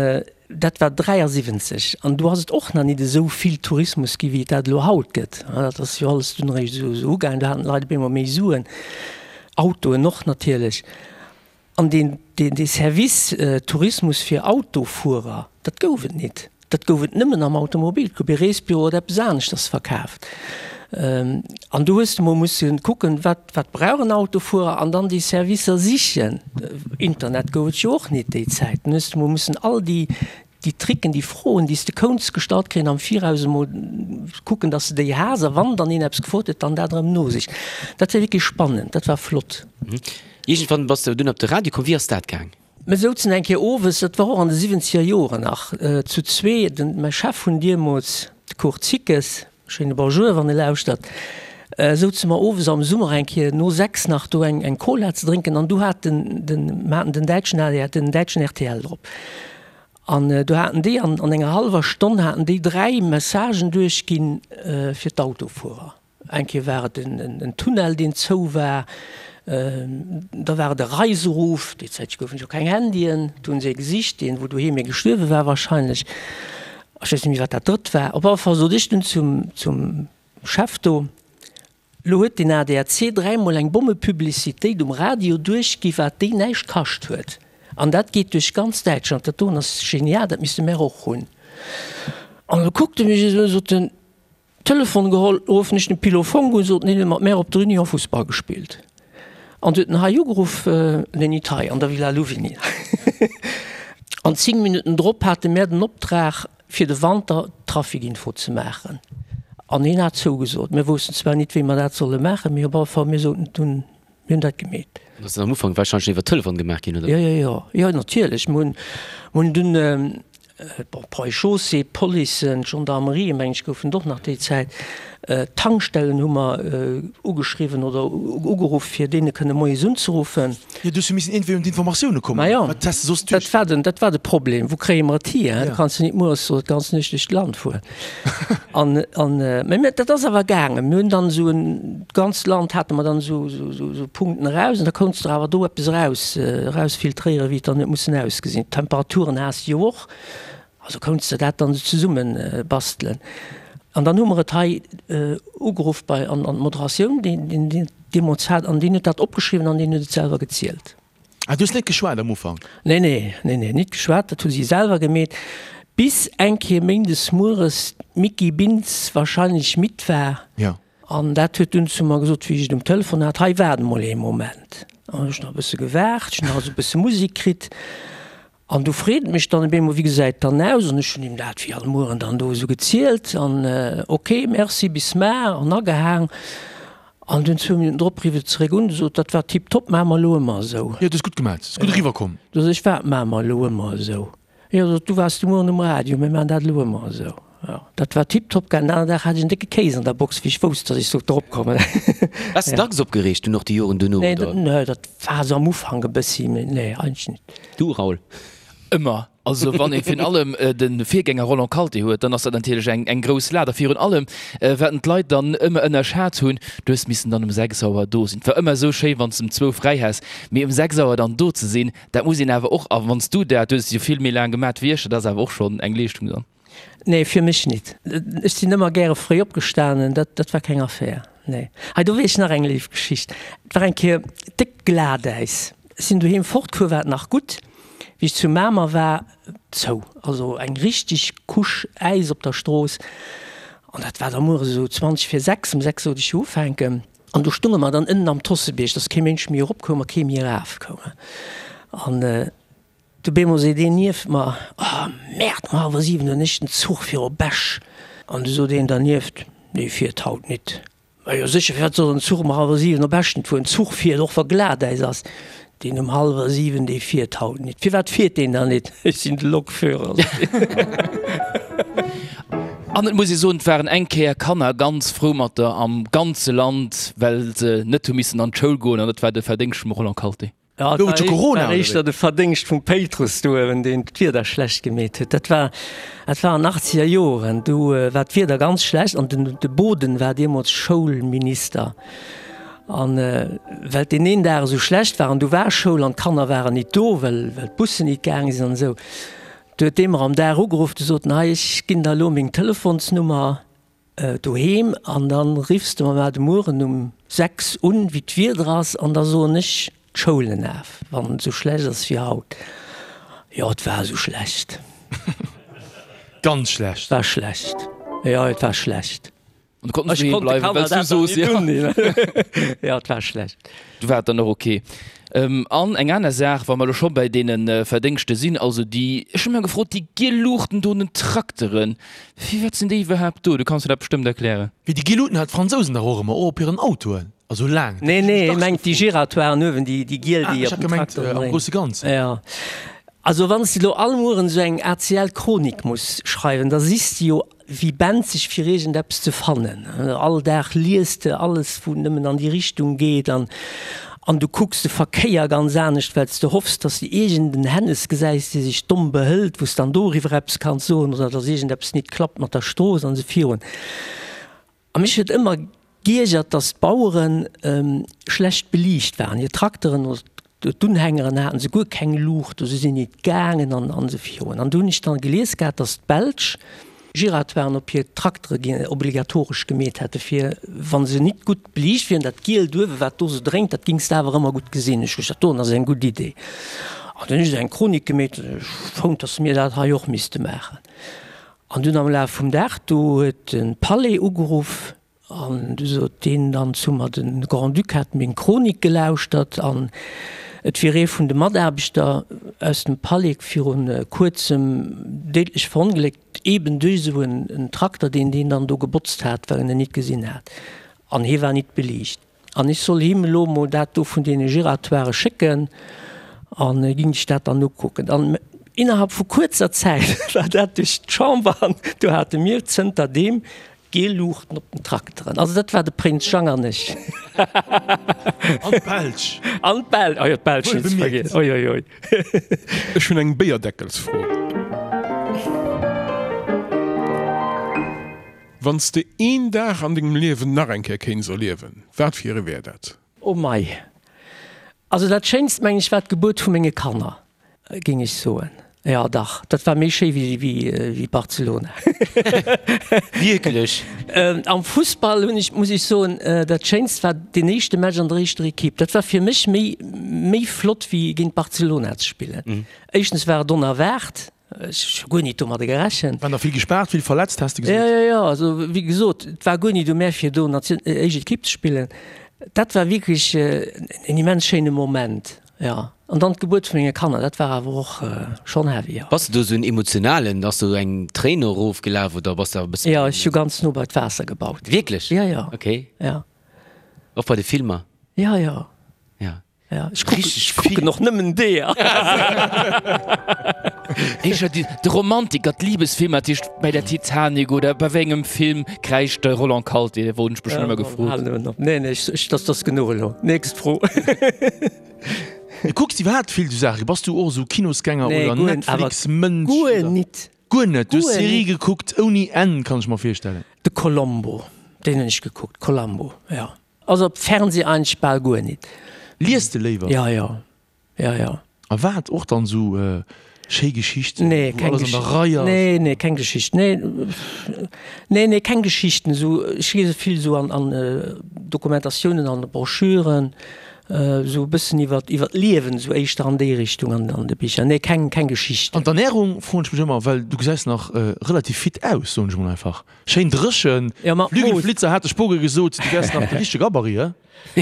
dat war 73. An do ass et och nach nit esou vill Tourismus gi wéi et dat elo haut gëtt. Dat ass jo alles dunn eréischt esou esou ugaangen. Do haten d'Leit op eemol méi Suen, Autoen och natierlech. An deen, deen, dee Service Tourismus fir Autofuerer, dat gouf et nit. Dat gouf et nëmmen am Automobil. Et gouf ee Reesbüro oder eppes aneschters verkaaft. An do hues de mol musse kucken, wat, wat brauch en Autofuerer an dann déi Servicer sichen. Internet gouf et jo och nit déi Zäit. Dann hues de mol mussen all déi, déi Tricken, déi Froen, déi s de kounts gestallt kréien am Viraus emol kucken, dass de déi has a wann dann een eppes gefrot huet, dann dat erëm nosicht. Dat war wierklech spannend, dat war flott. Iergendwann bass de dunn op de Radio komm. Wéi ass dat gaang? Mir souzen eng Kéier owes, dat war och an de siwwenzeger Joren nach, zu zwee, den, mäi Chef vun deemools, de Kurt Zickes, schéine Bonjour, wann e lauschtert, souze mer owes am Summer eng Kéier no 6 nach do eng, eng Cola ze drénken an du hat den, den, mer haten den däitschen ADR, den däitschen rtl drop. An do haten déi an, an enger hallwer Stonn haten déi 3 Messagen duerchginn fir d'Autofuerer. Eng Kéier war et en Tunnel, deen zou war, da war et e Reiseruf, déi Zäit goufen et jo keng Handyen, do hunn se ee gesicht, deen wou doheem ee gestuerwe war wahrscheinlech, ech weess net méi wat dat drëtt war. Op alle Fall sot ech dunn zum zum Chef do, Lo huet den ADAC dräimol eng Bommepublicitéit um Radio duerchgi wat déi näischt kascht huet, an dat geet duerch ganz Däitschland, dat doen ass genial, dat misste mär och hunn. An da kuckt e mech esou un, sot en, Telefon geholl, ruffen ech den Pilo Fonck un, sot en, hien huet mat mär op der Union Fussball gespillt. An du huet en hei ugeruff, nee nit hei, an der Villa Louvigny. An 10 Minutten drop hate mär den Optrag fir de Wanter d'Traficinfo ze maachen. An hien hat zougesot. Mir woussten zwar nit wéi mer dat solle maachen, mee op alle Fall mir soten dunn, Mir hunn dat gemeet. Dat ass am Ufank warscheinlech iwwer Telefon gemaach ginn, oder? Jo, jo, jo, jo, natierlech. Mir hunn, mir hunn dunn, bon, Ponts et Chaussées, d'Policen, d'Gendarmerie, mengen ech, goufen et och nach déi Zäit. D'Tankstellen hu mer ugeschriwwen oder ugeruff, fir deene kënne moies unzeruffen. Jo, du hues jo missen iergendwéi un d'Informatioune kommen. Ma jo, Wat häss de soss duerch. Dat war den, dat war de Problem. Wou kréie mer et hier? Du kanns jo nit mueres oder d'ganz Nuecht duerch d'Land fueren. An, an, mä mir, dat ass awer gaangen. Mir hunn dann esou en, d'ganzt Land hate mer dann esou, esou, esou, esou Punkten eraus an da kounts der awer do eppes eraus, erausfiltréieren, wéi et dann huet mussen ausgesinn. D'Temperaturen has de jo och, also kounts de dat dann esou zesumme bastelen. An dann hu mer et hei ugeruff bei, an, an d'Moderatioun, déi, déi, déi deemools hat, an deen huet dat opgeschriwwen an deen huet et selwer gezielt. Ah, du hues net geschwat am Ufank? Nee, nee, nee, nee, nit geschwat, dat hu si selwer gemeet, bis eng Kéier méindes mueres d'Micky Bintz wahrscheinlech midd war. Ja. An dat huet dunn zu mer gesot, wéi ech et um Telefon hat, Hei, waart emol ee Moment. An hu ech nach e bësse gewaart, ech hunn nach esou e bësse Musek kritt. An du freet mech dann op eemol, Wéi gesäit et dann aus? An ech hunn him dat wéi all Mueren dann do esou gezielt. An, Ok, merci, bis mar. An agehaang. An dunn zwou Minutten drop rifft et zeréck un, sot, Dat war tiptop, maache mer elo ëmmer esou. Jo, du hues gutt gemaat, ass gutt eriwwer komm. Du sot ech, Wat maache mer elo ëmmer esou? Jo, sot, du waars de Mueren um Radio, mir maachen dat elo ëmmer esou. Jo, dat war tiptop gaangen. Den aneren Dag hat ech en décke Kéis an der Box, wéi ech wousst, datt ech sollt drop kommen. Waars de dacks opgereegt dunn och déi Joren duerno, oder? Nee, dat war esou am Ufank e bëssi, mee nee, eigentlech net. Du, Raoul? Ëmmer. Also wann ee virun allem de Virgänger Roland Kalté huet, dann ass dat natierlech eng eng grouss Lat. A virun allem, wat en d'Leit dann ëmmer ënnerschat hunn, du hues missen dann um 6 Auer do sinn. Et war ëmmer esou schéi, wann s de um zwou fräi häss, mee um 6 Auer dann do ze sinn, dat muss een awer och, a wann s du dat, du hues et jo vill méi laang gemat wéi ech, dat ass awer och schonn eng Leeschtung dann. Nee, fir mech nit. Ech sinn ëmmer gäre fréi opgestanen, dat dat war keng Affär, nee. Hei, do weess ech nach eng léif Geschicht. Et war eng Kéier déckt Glatäis. Ech sinn doheem fortgefuer, war et nach gutt. Wéi ech zu Mamer war, zou. Also eng richteg Couche Äis op der Strooss. An dat war da mueres esou 20 vir 6. Um 6 sollt ech jo ufänken. An do stunge mer dann ënnen am Tossebierg, dass kee Mënsch méi eropkoum a kee méi erafkoum. An Du bemol seet een nieft mer, Oh Merde, um hallwer 7 hunn ech den Zuch fir op Esch. An du sot een dernieft, Dee fiert haut nit. Ma jo sécher, firwat soll en Zuch um hallwer 7 op Esch net fueren? Zuch fiert, och wa Glatäis ass. Deen um hallwer 7, dee fiert haut nit. Firwat fiert deen dann nit? Ech sinn de Lokführer, sot hien. An et muss ee soen, et waren eng Kéier Kanner ganz frou mat der am ganze Land, well se net hu missen an d'Schoul goen, an dat war de Verdéngscht vum Roland Kalté. Jo, et war Corona, war éischter de Verdéngscht vum Péitrus do uewen, deen d'Wieder schlecht gemeet huet. Dat war, dat war an achtzeger Joren, du war d'Wieder ganz schlecht an den, de Boden war deemools Schoulminister. An well deen een Dag esou schlecht war an du war Schoul an d'Kanner waren nit do, well, well d'Bussen nit gaange sinn an esou, du huet dee mer am Dag ugeruff, du sot en, hei ech ginn der elo meng Telefonsnummer, Doheem an dann riffs de mer mar de Mueren um 6 un wéi d'Wieder ass an da soen ech d'Schoulen af wann et sou schlecht ass wéi haut. Jo et war sou schlecht. Ganz schlecht. War schlecht. Jo et war schlecht. An du konnt net doheem bleiwen well s du soos jo. Jo et war schlecht. Du war et dann och ok. An eng aner Saach, wa mer elo scho bäi deene Verdéngschte sinn, also déi, ech hu mech gefrot, déi giel Luuchten do un den Trakteren, firwat sinn déi iwwerhaapt do? Du kanns mir dat bestëmmt erklären. Wéi déi giel Luuten hat d'Fransousen dach och ëmmer, och op hiren Autoen, also laang. Nee, nee, hie mengt déi Giratoiren uewen, déi giel, déi op den Trakteren dréinen. Ah, ech hat gemengt am grousse Ganzen. Jo. Also wann s de elo all Mueren esou eng ACL-Chronik muss schreiwen, da sichs de jo wéi benzeg fir iergendeppes ze fannen. All Dag lies de alles wou nëmmen an déi Richtung geet an an du kucks de Verkéier ganz anescht, well s de hoffs, dass de iergend en Hännes gesäis, dee sech domm behëlt, wou s dann doriwwer eppes kanns soen oder dass iergendeppes nit klappt mat der Strooss an esou virun. A mech huet ëmmer giergert, dass d'Bauere schlecht beliicht waren. Hir Trakteren oder d'Unhängeren haten se guer keng Luucht, se sinn nit gaangen an esou virun. An du hunn ech dann gelies gehat, dass d'Belsch Giratoiren op hir Traktere gi obligatoresch gemeet hätte fir, wa se nit gutt beliicht wieren, dat Gielt uewe wat do sou drénkt, dat gings de awer ëmmer gutt gesinn. Ech gesot, dat doen ass eng gutt Idee. An dunn hunn ech esou eng Chronik gemeet, ech fonnt, dass mir dat hei och misste maachen. An dunn am Laf vum Dag do huet de Palais ugeruff an du sot deen dann zu mer, de Grand-Duc hätt meng Chronik gelauschtert an et wier ee vun de Mataarbechter aus dem Palais viru kuerzem déidlech verongléckt, eben duerch esou en Trakter, deen deen dann do gebotzt hat, well en en nit gesinn hat an hie war nit beliicht. An ech soll him elo mol dat do vun deene Giratoiren schécken an e ging sech dat dann ukucken. An innerhalb vu kuerzer Zäit war dat duerch d'Chamber an do hate mir zënter deem giel Luuchten op den Trakteren. Also dat war de Prinz Jang an ech. An d'Belsch. An d'Belsch, oh jo, d'Belsch net ze vergiessen, oi oi oi. Ech hunn eng Béierdeckelsfro. Wann s de een Dag an dengem Liewen nach eng Kéier kéints erliewen, wat fir ee wär dat? Oh mei. Also dat schéinst meng ech war d'Gebuert vu menge Kanner, géing ech soen. Jo dach, dat war méi schéi wéi Barcelona. Wierklech? Am Fussball hunn ech, muss ech soen, dat schéinst war deen éischte Match an der éischter Equipe. Dat war fir mech méi méi flott wéi géint Barcelona ze spillen. Éischtens war et onerwaart, Ech hu guer nit domadder gerechent. Waren der vill gespaart, vill verletzt, has de gesot? Jo, jo, jo. Also, wéi gesot, et war guer nit u mär, fir do Nation, éischt Ekipp ze spillen. Dat war wierklech en immens schéine Moment, jo. An dann d'Gebuert vu menge Kanner, dat war awer och schonn heavy, jo. Bass de do esou en Emotionalen? Ass do eng Tréin erofgelaf oder bass de awer e bësse. Jo, ech hu ganz no bei d'Waasser gebaut. Wierklech? Jo, jo. Okay. Jo. Och bei de Filmer? Jo, jo. Jo. Ja, ech kucken, ech kucken och nëmmen deeër. Éischer déi, de Romantiker, d'Liebesfilmer, dat heescht bei der Titanic oder bei wéi engem Film kräischt de Roland Kalté? Dat wollt ech mech schonn ëmmer gefrot. Nee, nee, ech, ech, dat ass genuch elo. Nächst Fro. Du kucks iwwerhaapt vill esou Saachen. Bass du och esou Kinosgänger Nee, oder guer, awer Netflix-Mënsch guer oder? nit. Guer net? Du hues Guer Serie nit. gekuckt ouni Enn, kann ech mer virstellen. De Columbo, deen hunn ech gekuckt, Columbo, jo. Also op Fernseh eigentlech bal guer nit. Liest de léiwer? Ja, ja. Ja, ja. A wat? Och dann sou schéi Geschichten, Nee, wou keng alles an der Geschicht. Rei ass? Nee, nee, keng Geschicht. Nee, nee, nee, keng Geschichten. Sou, ech liese vill sou an, an Dokumentatiounen, an Broschüren, sou e bëssen iwwer, iwwer d'Liewen, sou éischter an déi Richtung an, an de Bicher. Nee, keng, keng Geschichten. An d'Ernärung, froen ech mech ëmmer, well du gesäis nach relativ fit aus, soen ech mol einfach. Schéin dréchen. Ja, mat Mooss. Flügelflitzer hat de Spoge gesot, du wärs nach de richtege Gabarit, he?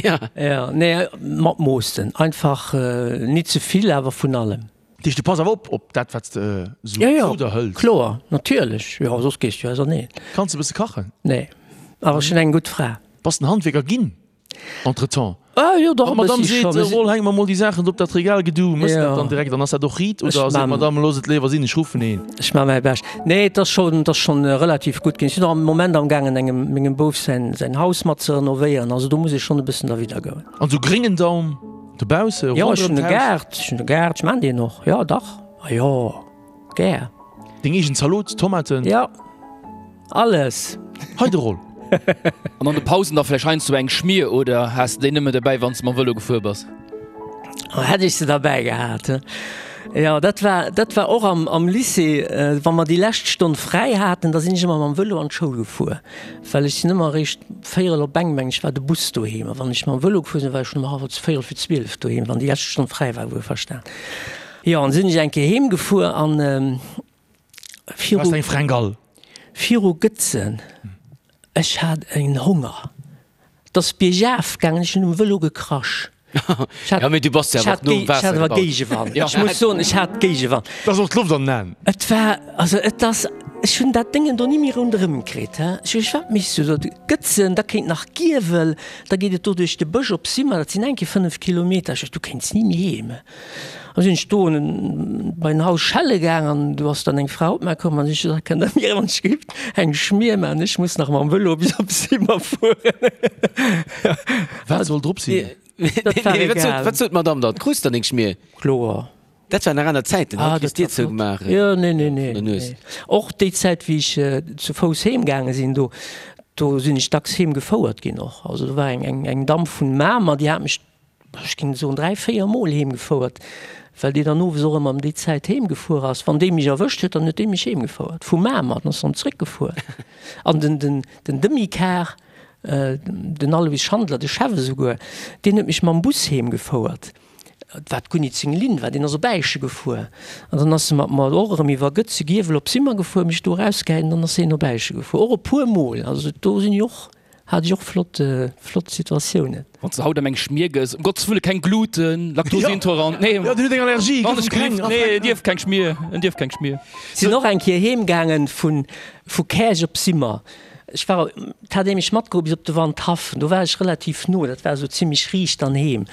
Ja. Ja, nee, mat Moossen. Einfach nit ze vill, awer vun allem. Dat heescht, du pass awer op, op dat, wat s de esou Ja, ja, zu der hëls? kloer, natierlech. Jo, soss gees du jo auserneen. Kanns de e bësse kachen? Nee, awer ech hunn eng gutt Fra. Bass den Handwierker ginn? Entretemps. Ah jo, dach Wann e d'Madame bëssi seet, scho. Roll, hänk mer mol déi Saachen do op dat Regal, gedu mëss dat dann direkt an ass dat och riit Ech oder seet man. d'Madame, looss et léiwer sinn, ech ruffen een? Ech man mäi Bescht. Nee, et ass schonn, et ass schonn relativ gutt ginn. Ech sinn och am Moment am gaangen engem, mengem Bouf säin, säin Haus mat ze renovéieren, also do muss ech schonn e bëssen derwidder goen. An sou gréngen Daum dobausse Jo, ech ronderëm hunn e d'Haus? Gaart, ech hunn e Gaart, ech man deen och, jo dach, ah jo, gär. Deng eegen Zalot, Tomaten? Jo. Alles! Hei de Roll. An an de Pausen da vläicht heiansdo eng Schmier oder has de déi nëmme derbäi wann s de mam Vëlo gefuer bass? Oh, hätt ech se derbäi gehat, he. Jo, dat war, dat war och am, am Lycée, wa mer déi lescht Stonn fräi haten, da sinn ech ëmmer mam Vëlo an d'Schoul gefuer, well ech sinn ëmmer eréischt véierel op eng, meng ech, war de Bus doheem. A wann ech mam Vëlo gefuer sinn, war ech schonn ëm hallwer, véierel fir 12 doheem, wann déi lescht Stonn fräi war, wuelverstan. Jo, an sinn ech eng Kéier heem gefuer an, Viru, eng Frängal. Viru Gëtzen, ech hat en Honger, 't ass biergaf gaangen, ech hunn um Vëlo gekrasch. Ech hat, Ja, mee du bass jo ech awer hat och nom Géi, ech hat Waasser awer gebaut. Géigewand. Ech muss soen, ech hat Géigewand. 't ass och d'Loft an den Aen. Et war, also et ass, ech hunn dat Déngen do ni méi ronderëm kritt, he. Ech hu gesot, wat méchs du do? Gëtzen, da kéint nach Giewel, da geet et do duerch de Bësch op Simmer, dat sinn eng Kéier 5 Kilometer. Ech sot, du kéints ni méi heem. An sinn ech do bei en Haus schelle gaang an do ass dann eng Fra op mär komm an ech hu gesot, kënnt der mir wann ech gift eng Schmier maachen, ech muss nach mam Vëlo bis op Simmer fueren. Wat soll drop sinn? Dat war egal. Wat sot d'Madame dann? Krus der deng Schmier? Kloer. Dat waren nach aner Zäiten, haut kriss d'Dier zougemaach Jo, nee, nee, nee. vun der Nues. Och déi Zäit wéi ech zu Fouss heem gaange sinn, do do sinn ech dacks heem gefouert ginn och. Also do war eng eng Damm vun Mamer, déi hat mech ech géing soen, 3, 4 Mol heem gefouert, well déi dann owes och ëmmer ëm déi Zäit heem gefuer ass. Wann déi mech erwëscht huet, dann huet déi mech heem gefouert vu Mamer, dann ass se dann zréck gefuer. An den, den, den Demi-Car, den Alois Schandler, de Chef esouguer, deen huet mech mam Bus heem gefouert, wat guer nit seng Linn war, deen ass op Äische gefuer. An dann ass e mat mer och erëm iwwer Gëtze, Giewel op Simmer gefuer, mech do erausgehäit an dann ass hien op Äische gefuer, och e puer Mol. Also do sinn ech och Hat ech och flott flott Situatiounen. Wann s de haut ëm eng Schmier gëss, um Gottes Wëlle keng Gluten, Laktoseintolerant, nee, Jo, den huet eng Allergie, wann ech keng, nee, en dierf keng Schmier, en dierf keng Schmier. Sinn och eng Kéier heem gaangen vun vu Käerch op Simmer. Ech war, 't hat ee mech matgeholl bis op de Wandhaff, do war ech relativ no, dat war esou zimmlech riicht dann heem.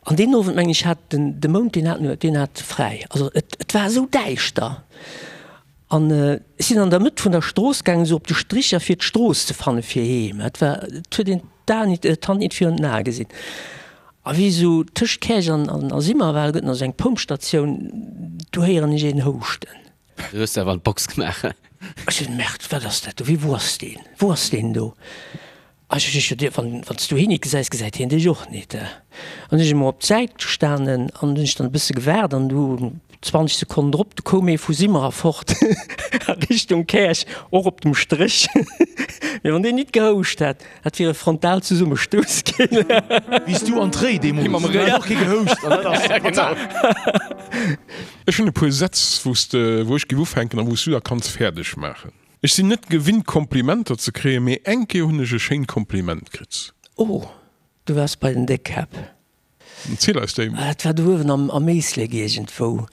An deen Owend mengen ech hat den de Mound, deen hat deen hat fräi, also et et war esou däischter. An ech sinn an der Mëtt vun der Strooss gaangen, esou op de Stricher, fir d'Strooss ze fanne fir heem. Et war, et huet een d'Aen nit, d'Hand nit virun den Ae gesinn. A wéi esou tëscht Käerch an, an a Simmer war, do gëtt nach esou eng Pompstatioun, do héieren ech een houschten. Du hues awer an d'Box gemaach. Ech sot, Merde, wat ass dat do? Wéi, wou ass deen? Wou ass deen do? A ech ech sot, Wann, wann s du hien nit gesäis, gesäit hien dech och nit. An du sinn ech emol op d'Säit gestanen an hunn ech dann e bësse gewaart an du 20 Sekonnen drop, du koum ee vu Simmer erfort a Richtung Käerch, och op dem Stréch. Mee wann deen nit gehouscht hätt, dat wier e Frontalzesummestouss ginn. Wéi s du an d'Réi deemools, do hat och kee gehouscht an dat ass fatal. Ech hunn e puer Sätz, wou s de, wou ech géif ufänken a wou s du da kanns fäerdeg maachen. Ech sinn net gewinnt Komplimenter ze kréien, mee eng Kéier hunn ech e schéint Kompliment kritt. Oh, du waars bei den Déckkäpp. Ziel eis déi. Dat war do uewen am Éislek iergendwou.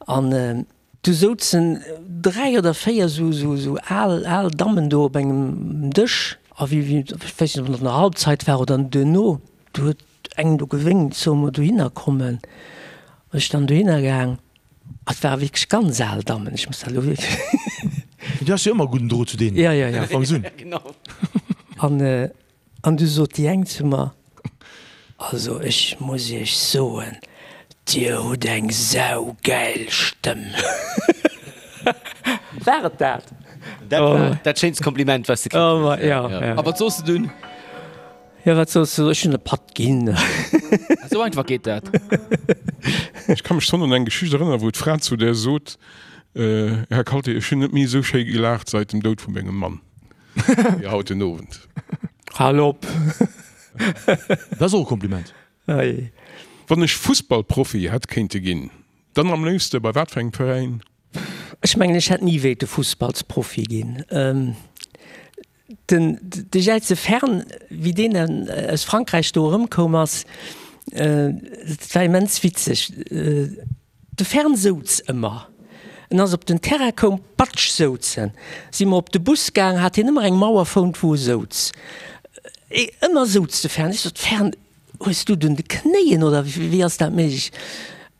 An du souzen 3 oder 4 esou al, al Dammen do op engem Dësch. A wéi, wéi, ech weess net, ob et an der Halbzeit war oder duerno, du huet eng do gewénkt, solle mer dohinner kommen. Ech dann dohinner gaang. Et ware wierklech ganz al Dammen, ech muss dat elo wierklech. Mee du has jo ëmmer e gudden Drot zu deenen. Ja, ja, ja. Du fangs un. An, an du sot déi eng zu mer, Also ech muss iech soen, dir hutt eng saugäil Stëmm. War et dat? Dat war dat schéinst Kompliment, wat s de kritt hues. Ja, ja. A wat soss de dunn? Jo, wat soss du? Ech hunn e Patt ginn. Esou einfach geet dat. Ech ka mech schonn un eng Geschicht erënneren, wou d'Fra zu där sot, Här Kalté, ech hunn net méi esou schéi gelaacht seit dem Doud vu mengem Mann wéi haut den Owend. Hal op! Dat ass och e Kompliment. Ei. Wann ech Fussballprofi hätt kéinte ginn, dann am léifste bei wat fir engem Veräin? Ech mengen, ech hätt ni wéilte Fussballsprofi ginn. Den de Jäize Fern, wéi deen aus Frankräich do erëmkoum ass, dat war immens witzeg. De Fern souz ëmmer. En ass op den Terrain koum, patsch souz en. Si mer op de Bus gaang, hat hien ëmmer eng Mauer fount, wou e souz. Ëmmer souz de Fern. Ech sot, Fern, hues du et un de Knéien oder wéi ass dat méiglech?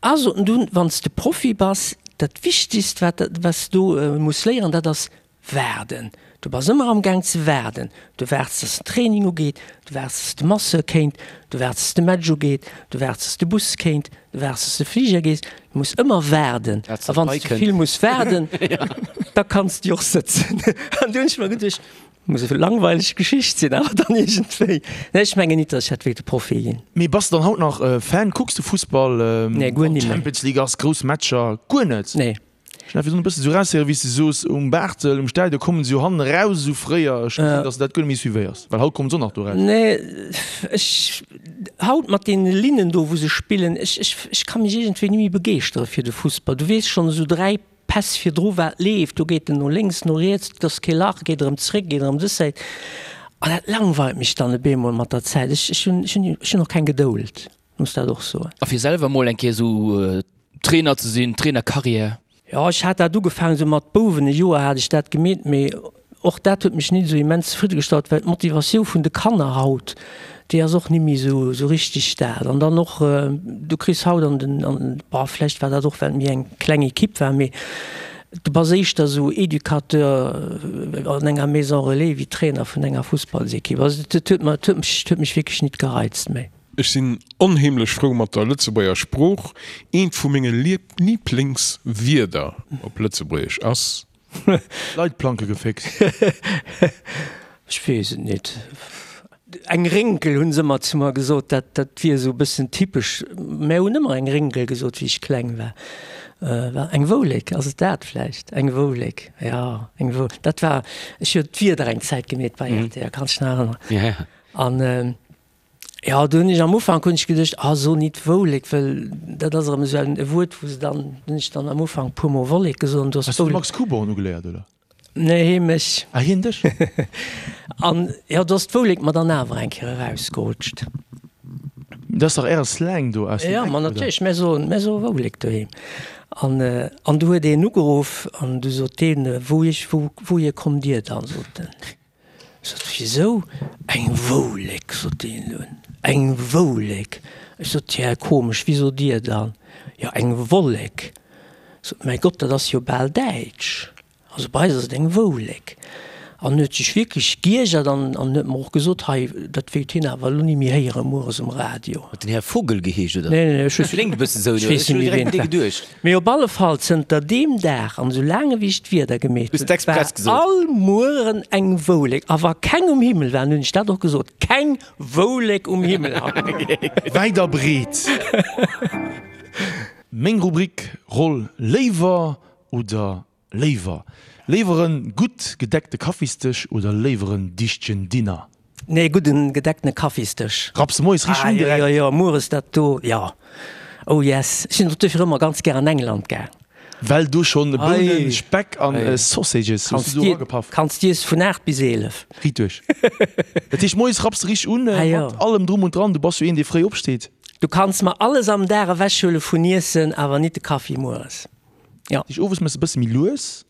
A sot en dunn, wann s de Profi bass, dat Wichtigst wat wat s du muss léieren, dat ass waarden. Du bass ëmmer am Gaang ze waarden. Du waarts, dass den Training ugeet, du waarts, dass de Masseur kéint, du waarts, dass de Match ugeet, du waarts, dass de Bus kéint, du waarts, dass de Fliger gees. Du muss ëmmer waarden. A wann s du vill muss waarden, da kanns du och sëtzen. An du hunn ech mer geduecht, Muss e langweileg Geschicht sinn, awer dann iergendwéi. Nee, ech mengen nit, datt ech hätt wéilte Profi ginn. Mee bass de dann haut nach Fan? Kucks de Fussball? Nee, guer ni méi. Champions League ass, grouss Matcher, guer net? Nee. Ech hat virdrun e bëssen esou eraushéieren, wéi s de soos, um Barthel, um Stadion kommen se jo hannen eraus esou fréier. Ech gesinn, datt s de dat guer net méi suivéiers, well haut kommen se och nach do eraus. Nee, ech, haut mat deene Linnen do, wou se spillen, ech, ech, ech ka mech iergendwéi ni méi begeeschtere fir de Fussball. Du weess schonn esou 3 Päss virdru wat leeft, do geet en no lénks, no riets, et ass kee Lach, geet erëm zréck, geet erëm dës Säit. An dat langweilt mech dann e beemol mat der Zäit. Ech, ech hunn, ech hunn, ech hunn och keng Gedould, muss dat och soen. A fir selwer mol eng Kéier esou Trainer ze sinn, Trainercarrière? Jo, ech hat dat ugefaangen esou mat Bouwen, e Joer hat ech dat gemeet, mee Och dat huet mech nit esou immens zefriddegestallt, well d'Motivatioun vun de Kanner haut, déi ass och nimmi esou esou richtig dat. An dann och, du kriss haut an den, an, bon, vläicht war dat och, well et méi eng kleng Equipe war, mee du bass éischter esou Educateur an enger Maison Relais wéi Trainer vun enger Fussballsequipe. Also dat huet mer, huet mech, huet mech wierklech nit gereizt méi. Ech sinn onheemlech frou mat der Lëtzebuerger Sprooch. Eent vu menge Lieblingswierder op Lëtzebuergesch ass. Leitplanke geféckt. Ech weess et nit. Eng Rénkel hunn se ëmmer zu mer gesot, dat dat wier esou e bëssen typesch. Mär hunn ëmmer eng Rénkel gesot, wéi ech kleng war. War eng Woulek, ass et dat vläicht? Eng Woulek, jo, eng Wou, dat war, ech hu d'Wieder eng Zäit gemeet bei rtl, kanns dech nach erënneren? An Jo, do hunn ech am Ufank hunn ech geduecht, ah so nit Woulek, well dat ass erëm esou en e Wuert, wou se dann, hunn ech dann am Ufank puer mol Wollek gesot an du ass Has du de Max Kuborn ugeléiert, oder? Nee, hee mech. Ah, hien dech? An jo, do ass d'Woulek mer dann awer eng Kéier erausgerutscht. Dat ass dach äre Slang do aus dem Eck, oder? Jo, ma natierlech, mär soen, mär soe Woulek doheem. An, an du huet een ugeruff an du sot deen, Wou ech, wou, wouhier kommt Dir dann? sot en. Ech sot, Wisou? Eng Woulek, sot deen dunn. Eng Woulek? Ech sot, Tja, komesch, wéi sot Dir dann? Jo, eng Wollek. Ech sot, Mäi Gott, dat ass jo bal däitsch. Also bei eis ass et eng Woulek. An huet sech wierklech giergert an huet mer och gesot, hei, dat wéilt hien awer elo ni méi héiere mueres um Radio. Huet den Här Vogel geheescht, oder? Nee, nee, ech Kléngt e bësse sou, ech weess net méi, ween et war. Mee op alle Fall, zënter deem Dag an esou laang ewéi ech d'Wieder gemeet hunn, war all Mueren eng Woulek. A wa keng um Himmel war, hunn ech dat och gesot, Keng Woulek um Himmel haut! Wäit a breet. Meng Rubrik, Roll léiwer oder Léiwer léiwer en gutt gedeckte Kaffisdësch oder léiwer en dichtegen Dinner? Nee, gudden gedecktene Kaffisdësch. Rapps de moies richteg un direkt? Ah jo jo, mueres dat do, jo. Oh yes. Ech sinn och duerfir ëmmer ganz gär an England gaang. Well do schonn Bounen, Speck an Sausages hues du do eragepaff? Kanns d'iess vun 8 bis 11. Riit duerch. Dat heescht moies rapps de richteg un mat allem drum und dran? Du bass jo een dee fréi opsteet. Du kanns mer alles am Dag ewechhuele vun Iessen, awer nit de Kaffi mueres. Ja. Dich owes mëss e bësse méi lues,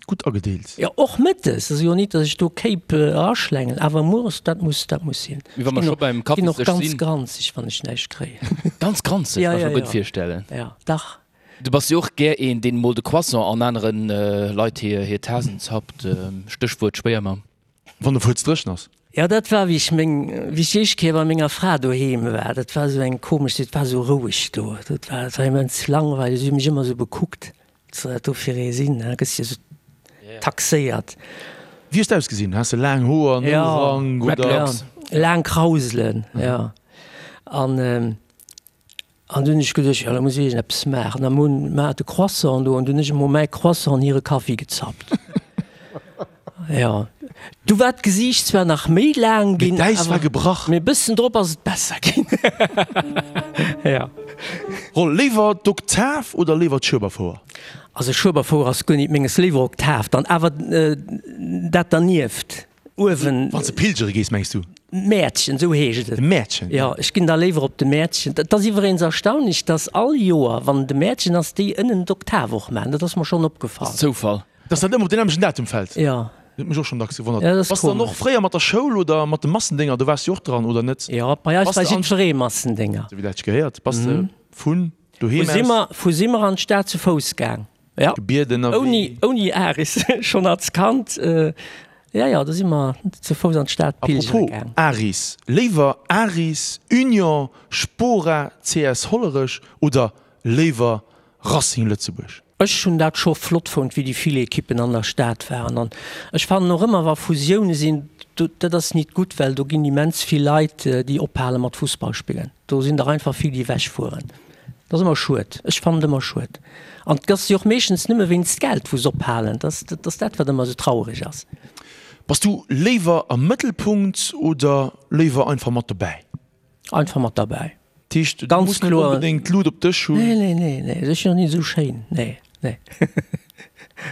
gutt agedeelt. Jo, och mëttes. Ass jo nit, datt ech do Kéip eraschlängelen, awer mueres, dat muss, dat muss sinn. Mee wa mer scho beim Ech ginn och Kaffisdësch ganz sinn. granzeg, wann ech näischt kréien. Ganz granzeg? Ja, Kann ech ja, mer gutt ja. virstellen. Ja, dach. Du bass jo och gär een, deen mol de Croissant an aneren Leit hir hir Tasen zappt, Stéchwuert Schwéiermamm. Wann de Fuerz dréchen ass. Jo, dat war wéi ech meng, wéi ech déi éischt Kéier bei menger Fra doheem war. Dat war esou eng komesch, et war esou roueg do. Dat war, dat war immens langweileg. Si hu mech ëmmer esou bekuckt, wat soll dat do fir ee sinn, da gëss de jo esou taxéiert. Wéi hues de ausgesinn? Has de laang Hoer, Nourank oder? Dreadlocks? Jo, laang Krauselen, jo. An An du hunn ech geduecht, jo, da muss ech iergendeppes maachen. An hunn mer de Croissant do an du hunn ech emol mäi Croissant an hire Kaffi gezappt. Jo, du war d'Gesiicht zwar nach méi laang ginn, Mee d'Äis war gebrach. Mee e bëssen drop ass et besser ginn. Jo. Roll, léiwer d'Oktav oder léiwer d'Schueberfouer? Also Schueberfouer ass guer nit menges, léiwer Oktav dann, awer dat dernieft. Uewen. Wann s de pilgere gees, mengs du? Mäertchen, esou heescht et. De Mäertchen? Jo, ech ginn da léiwer op de Mäertchen. Et ass iwweregens erstaunlech, dass all Joer, wann de Mäertchen ass, déi ënnen d'Oktav och maachen. Dat ass mer schonn opgefall. Ass Zoufall. Dass dat ëmmer op deen nämmlechten Datum fält? Jo. Dat huet mech och schonn dacks gewonnert. Ja, dat ass Bass de dann och fréier mat der Schoul oder mat de Massendénger, do waars de jo och dran, oder net? Jo, bei eis war jiddweree Massendénger. Esou wéi dat sech gehéiert. Bass de vun doheem aus. Simmer, vu Simmer an d'Stad zu Fouss gaang. Ja. Gebieden a wéi. Ouni, ouni Aris, schonn als Kand. Ja, ja, do si mer zu Fouss an d'Stad pilgere gaang. Apropos Aris, léiwer Aris, Union, Spora, CS Hollerech oder léiwer Racing Lëtzebuerg? Ech hunn dat scho flott fonnt, wéi déi vill Ekippen an der Stad waren. An ech fannen och ëmmer, wa Fusioune sinn, do, dat ass nit gutt, well do ginn immens vill Leit, déi ophale mat Fussball spillen. Do sinn der einfach vill, déi ewechfueren. Dat ass ëmmer schued. Ech fannen et ëmmer schued. An et ass jo och meeschtens nëmme wéinst Geld, wou se ophalen. Dat ass, dat ass dat, wat ëmmer esou trauereg ass. Bass du léiwer am Mëttelpunkt oder léiwer einfach mat dobäi? Einfach mat derbäi. Dat heescht, du muss net onbedéngt d'Lut op dech hunn? Nee, nee, nee, nee, ech sinn och net esou schéin, nee, nee.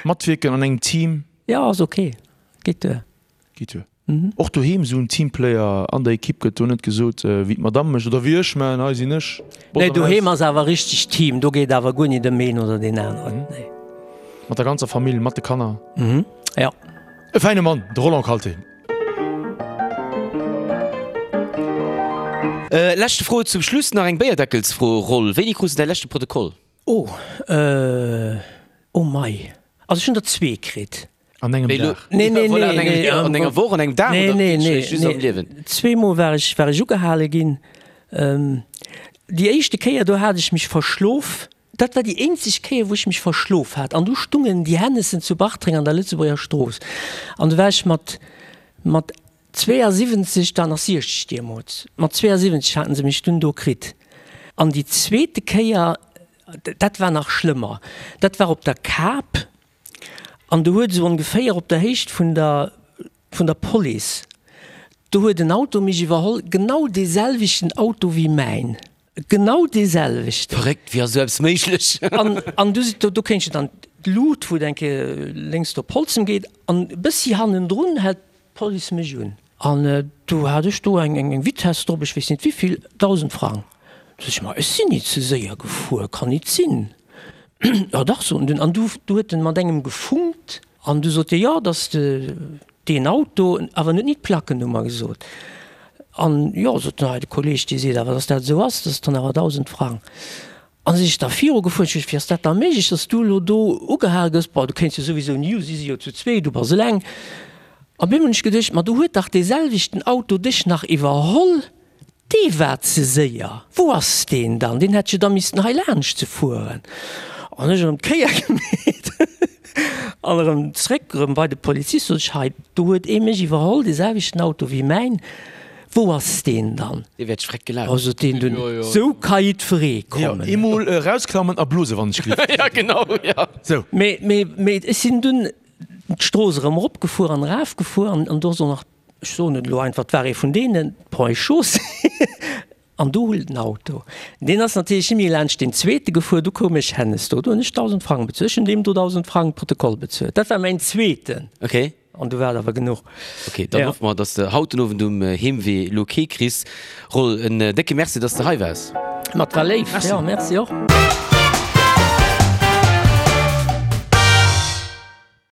Matwierken an engem Team? Jo, ass ok, geet duer. Geet duer. Och doheem esou en Teamplayer an der Ekipp gëtt do net gesot, wéi d'Madame mécht oder wéi ech maachen, hei sinn ech. Nee, doheem ass awer richteg Team, do geet awer guer nit ëm een oder deen aneren, nee. Mat der ganzer Famill, mat de Kanner? Jo. E fäine Mann, de Roland Kalté. Leschte Fro zum Schluss, nach eng Béierdeckelsfro, Roll, wéini krus de däi leschte Protokoll? Oh, oh mei, also ech hunn der zwee kritt. An engem Dag? Nee, nee, nee, An enger Woch, an engem Dag oder just am Liewen? Zweemol war ech, war ech ugehale ginn. Déi éischte Kéier, do hat ech mech verschlof. Dat war déi eenzeg Kéier, wou ech mech verschlof hat. An du stungen déi Hennessen zu Bartreng an der Lëtzebuerger Strooss. An du war ech mat, mat 72, da nach 60 deemools, mat 72 haten se mech dunn do kritt. An déi zweete Kéier, dat war nach schlëmmer, dat war op der Kap. An do huet esou ongeféier op der Héicht vun der, vun der Police, do huet en Auto mech iwwerholl, genau dee selwechten Auto wéi mäin. Genau dee selwechten. Verréckt, wéi ass esou eppes méiglech? An, an du, do, do kéint je dann d'Lut, wou et eng Kéier lénks do op Holzem geet, an e bëssi hannendrun hält d'Police mech un. An du hat ech do eng, eng, eng Vitesse drop, ech weess net wéivill, 1.000 Frang. Du sot ech, ma ech sinn nit ze séier gefuer, kann nit sinn. Jo dach, sot en dunn. An du, du huet en mat engem gefunkt, an du sot dee, jo, dass de deen Auto, awer en huet nit d'Plackennummer gesot. An jo, sot den hei, de Kolleg, dee seet awer, dass dat esou ass, dat ass dann awer 1.000 Frang. An si ech da viru gefuer, ech sot, wéi ass dat da méiglech, dass du elo do ugehal gëss? Bon, du kéints jo souwisou ni u, si si jo zu zwee, du bass eleng. Op eemol hunn ech geduecht, ma do huet dach dee selwechten Auto dech nach iwwerholl. Dee war ze séier. Wou ass deen dann? Deen hätt jo da missten hei laanscht ze fueren. An ech erëm d'Kéier gemeet an erëm zréck, erëm bei de Polizist, sot ech, hei, do huet ee mech iwwerholl, dee selwechten Auto wéi mäin, wou ass deen dann? Dee wäert schreck gelaf. Oh, sot deen dunn, sou ka jiddweree kommen. Jo, eemol erausklammen a blose wann ech gleef. Ja, genau, ja. Sou. Mee, mee, mee ech sinn dunn d'Strooss erëm eropgefuer an erafgefuer an do ass och nach Ech soen et elo einfach, et war ee vun deenen, d'Ponts et Chaussées, an do hull den Auto. Deen ass natierlech ni méi laanscht deen zweete gefuer, du koum ech hennes do, do hunn ech 1.000 Frang bezuelt. Ech hunn deem do 1.000 Frang Protokoll bezuelt. Dat war mäin zweeten. Okay. An du war et awer genuch. Okay, dann hoffe mer, dass de haut den Owend um Heemwee elo kee kriss. Roll, en décke Merci, dass de hei waars. Ma et war léif. Merci. Jo, merci och.